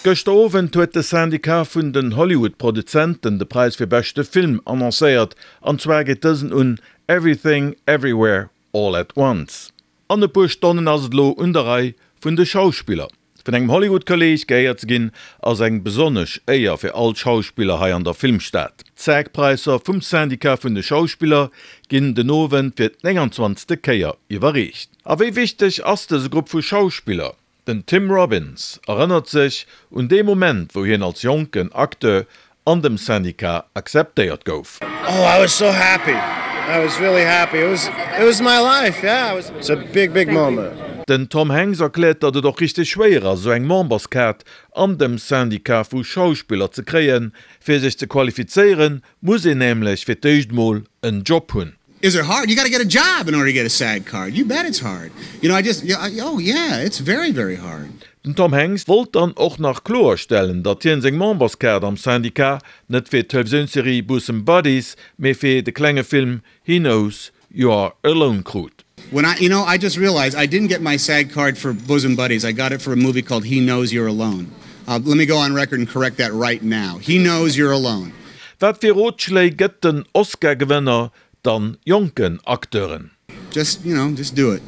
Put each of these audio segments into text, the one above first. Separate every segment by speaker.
Speaker 1: Gëschter Owend huet de Syndicat vun den Hollywood-Produzenten de Präis fir beschte Film annoncéiert, an zwar geet dësen un Everything Everywhere All at Once. An e puer Stonnen ass et elo un der Rei vun de Schauspiller. Vun engem Hollywood-Kolleeg geéiert ze ginn, ass eng besonnesch Éier fir all d'Schauspiller hei an der Filmstad. D'SAG-Präisser vum Syndicat vun de Schauspiller ginn den Owend fir d'29. Kéier iwwerreecht. A wéi wichteg ass dëse Grupp vu Schauspiller? Den Tim Robbins erënnert sech un dee Moment, wou hien als jonken Acteur an dem Syndicat akzeptéiert gouf.
Speaker 2: Oh I was so happy, I was really happy, it was it was my life, yeah, it was it's a big big moment.
Speaker 1: Den Tom Hanks erkläert, datt et och richteg schwéier ass, esou eng Memberskaart an dem Syndicat vu Schauspiller ze kréien. Fir sech ze qualifizéieren, muss een nämlech fir d'éischt mol en Job hunn.
Speaker 2: Is it hard? You got to get a job in order to get a SAG card. You bet it's hard. You know, I just, oh yeah, it's very, very hard.
Speaker 1: Den Tom Hanks wollt dann och nach kloerstellen, datt hien seng Memberskaart am Syndicat net fir d'Televisiounsserie Bosom Buddies, mee fir de klenge Film He Knows You Are Alone krut.
Speaker 2: When I, you know, I just realized I didn't get my SAG card for Bosom Buddies, I got it for a movie called He Knows You're Alone. Let me go on record and correct that right now. He Knows You're Alone.
Speaker 1: Wat fir Rotschléi gëtt den Oscar-Gewënner dann jonken Acteuren?
Speaker 2: Just, you know, just do it.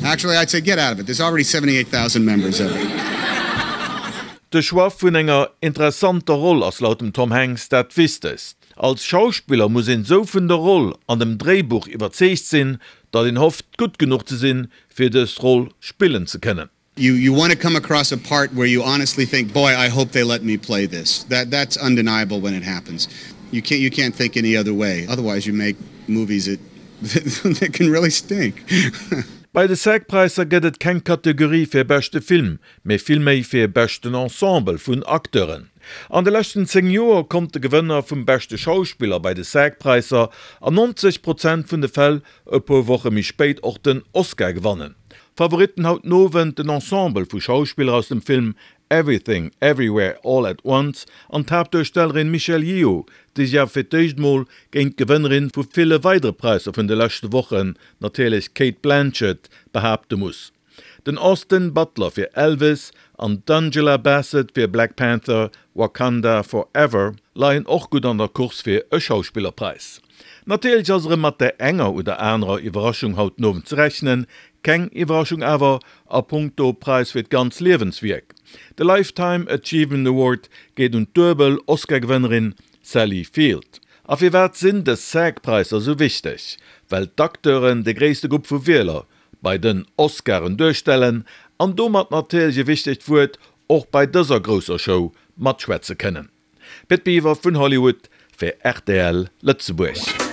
Speaker 2: Actually, I'd say get out of it. There's already 78,000 members of it.
Speaker 1: De Choix vun enger interessanter Roll ass laut dem Tom Hanks dat Wichtegst. Als Schauspiller muss een sou vun der Roll an dem Dréibuch iwwerzeegt sinn, datt een hofft gutt genuch ze sinn, fir dës Roll spillen ze kënnen.
Speaker 2: You you want to come across a part where you honestly think, boy, I hope they let me play this. That that's undeniable when it happens. You can't you can't think any other way. Otherwise you make movies that that can really stink.
Speaker 1: Bei de SAG-Präisser gëtt et keng Kategorie fir beschte Film, mee vill méi fir beschten Ensemble vun Acteuren. An de leschten 10 Joer konnt de Gewënner vum beschte Schauspiller bei de SAG-Präisser an 90 Prozent vun de Fäll e puer Woche méi spéit och den Oscar gewannen. Favoritten haut den Owend, den Ensemble vu Schauspiller aus dem Film Everything Everywhere All at Once an d'Haaptduerstellerin Michelle Yeoh, déi sech awer fir d'éischt mol géint d'Gewënnerin vu ville weidere Präisser vun de leschte Wochen, natierlech d'Cate Blanchett, behaapte muss. Den Austin Butler fir Elvis an d'Angela Bassett fir Black Panther, Wakanda Forever leien och gutt an der Course fir e Schauspillerpräis. Natierlech ass erëm mat där enger oder anerer Iwwerraschung haut den Owend ze rechnen. Keng Iwwerraschung awer a punkto Präis fir d'ganz Liewenswierk. De Lifetime Achievement Award geet un d'duebel Oscar-Gewënnerin Sally Field. A firwat sinn dës SAG-Präisser esou wichteg? Well d'Acteuren de gréisste Grupp vu Wieler bei den Oscaren duerstellen an domat natierlech e wichtegt Wuert och bei dëser grousser Show matschwätze kënnen. Pit Biwer vun Hollywood fir rtl Lëtzebuerg.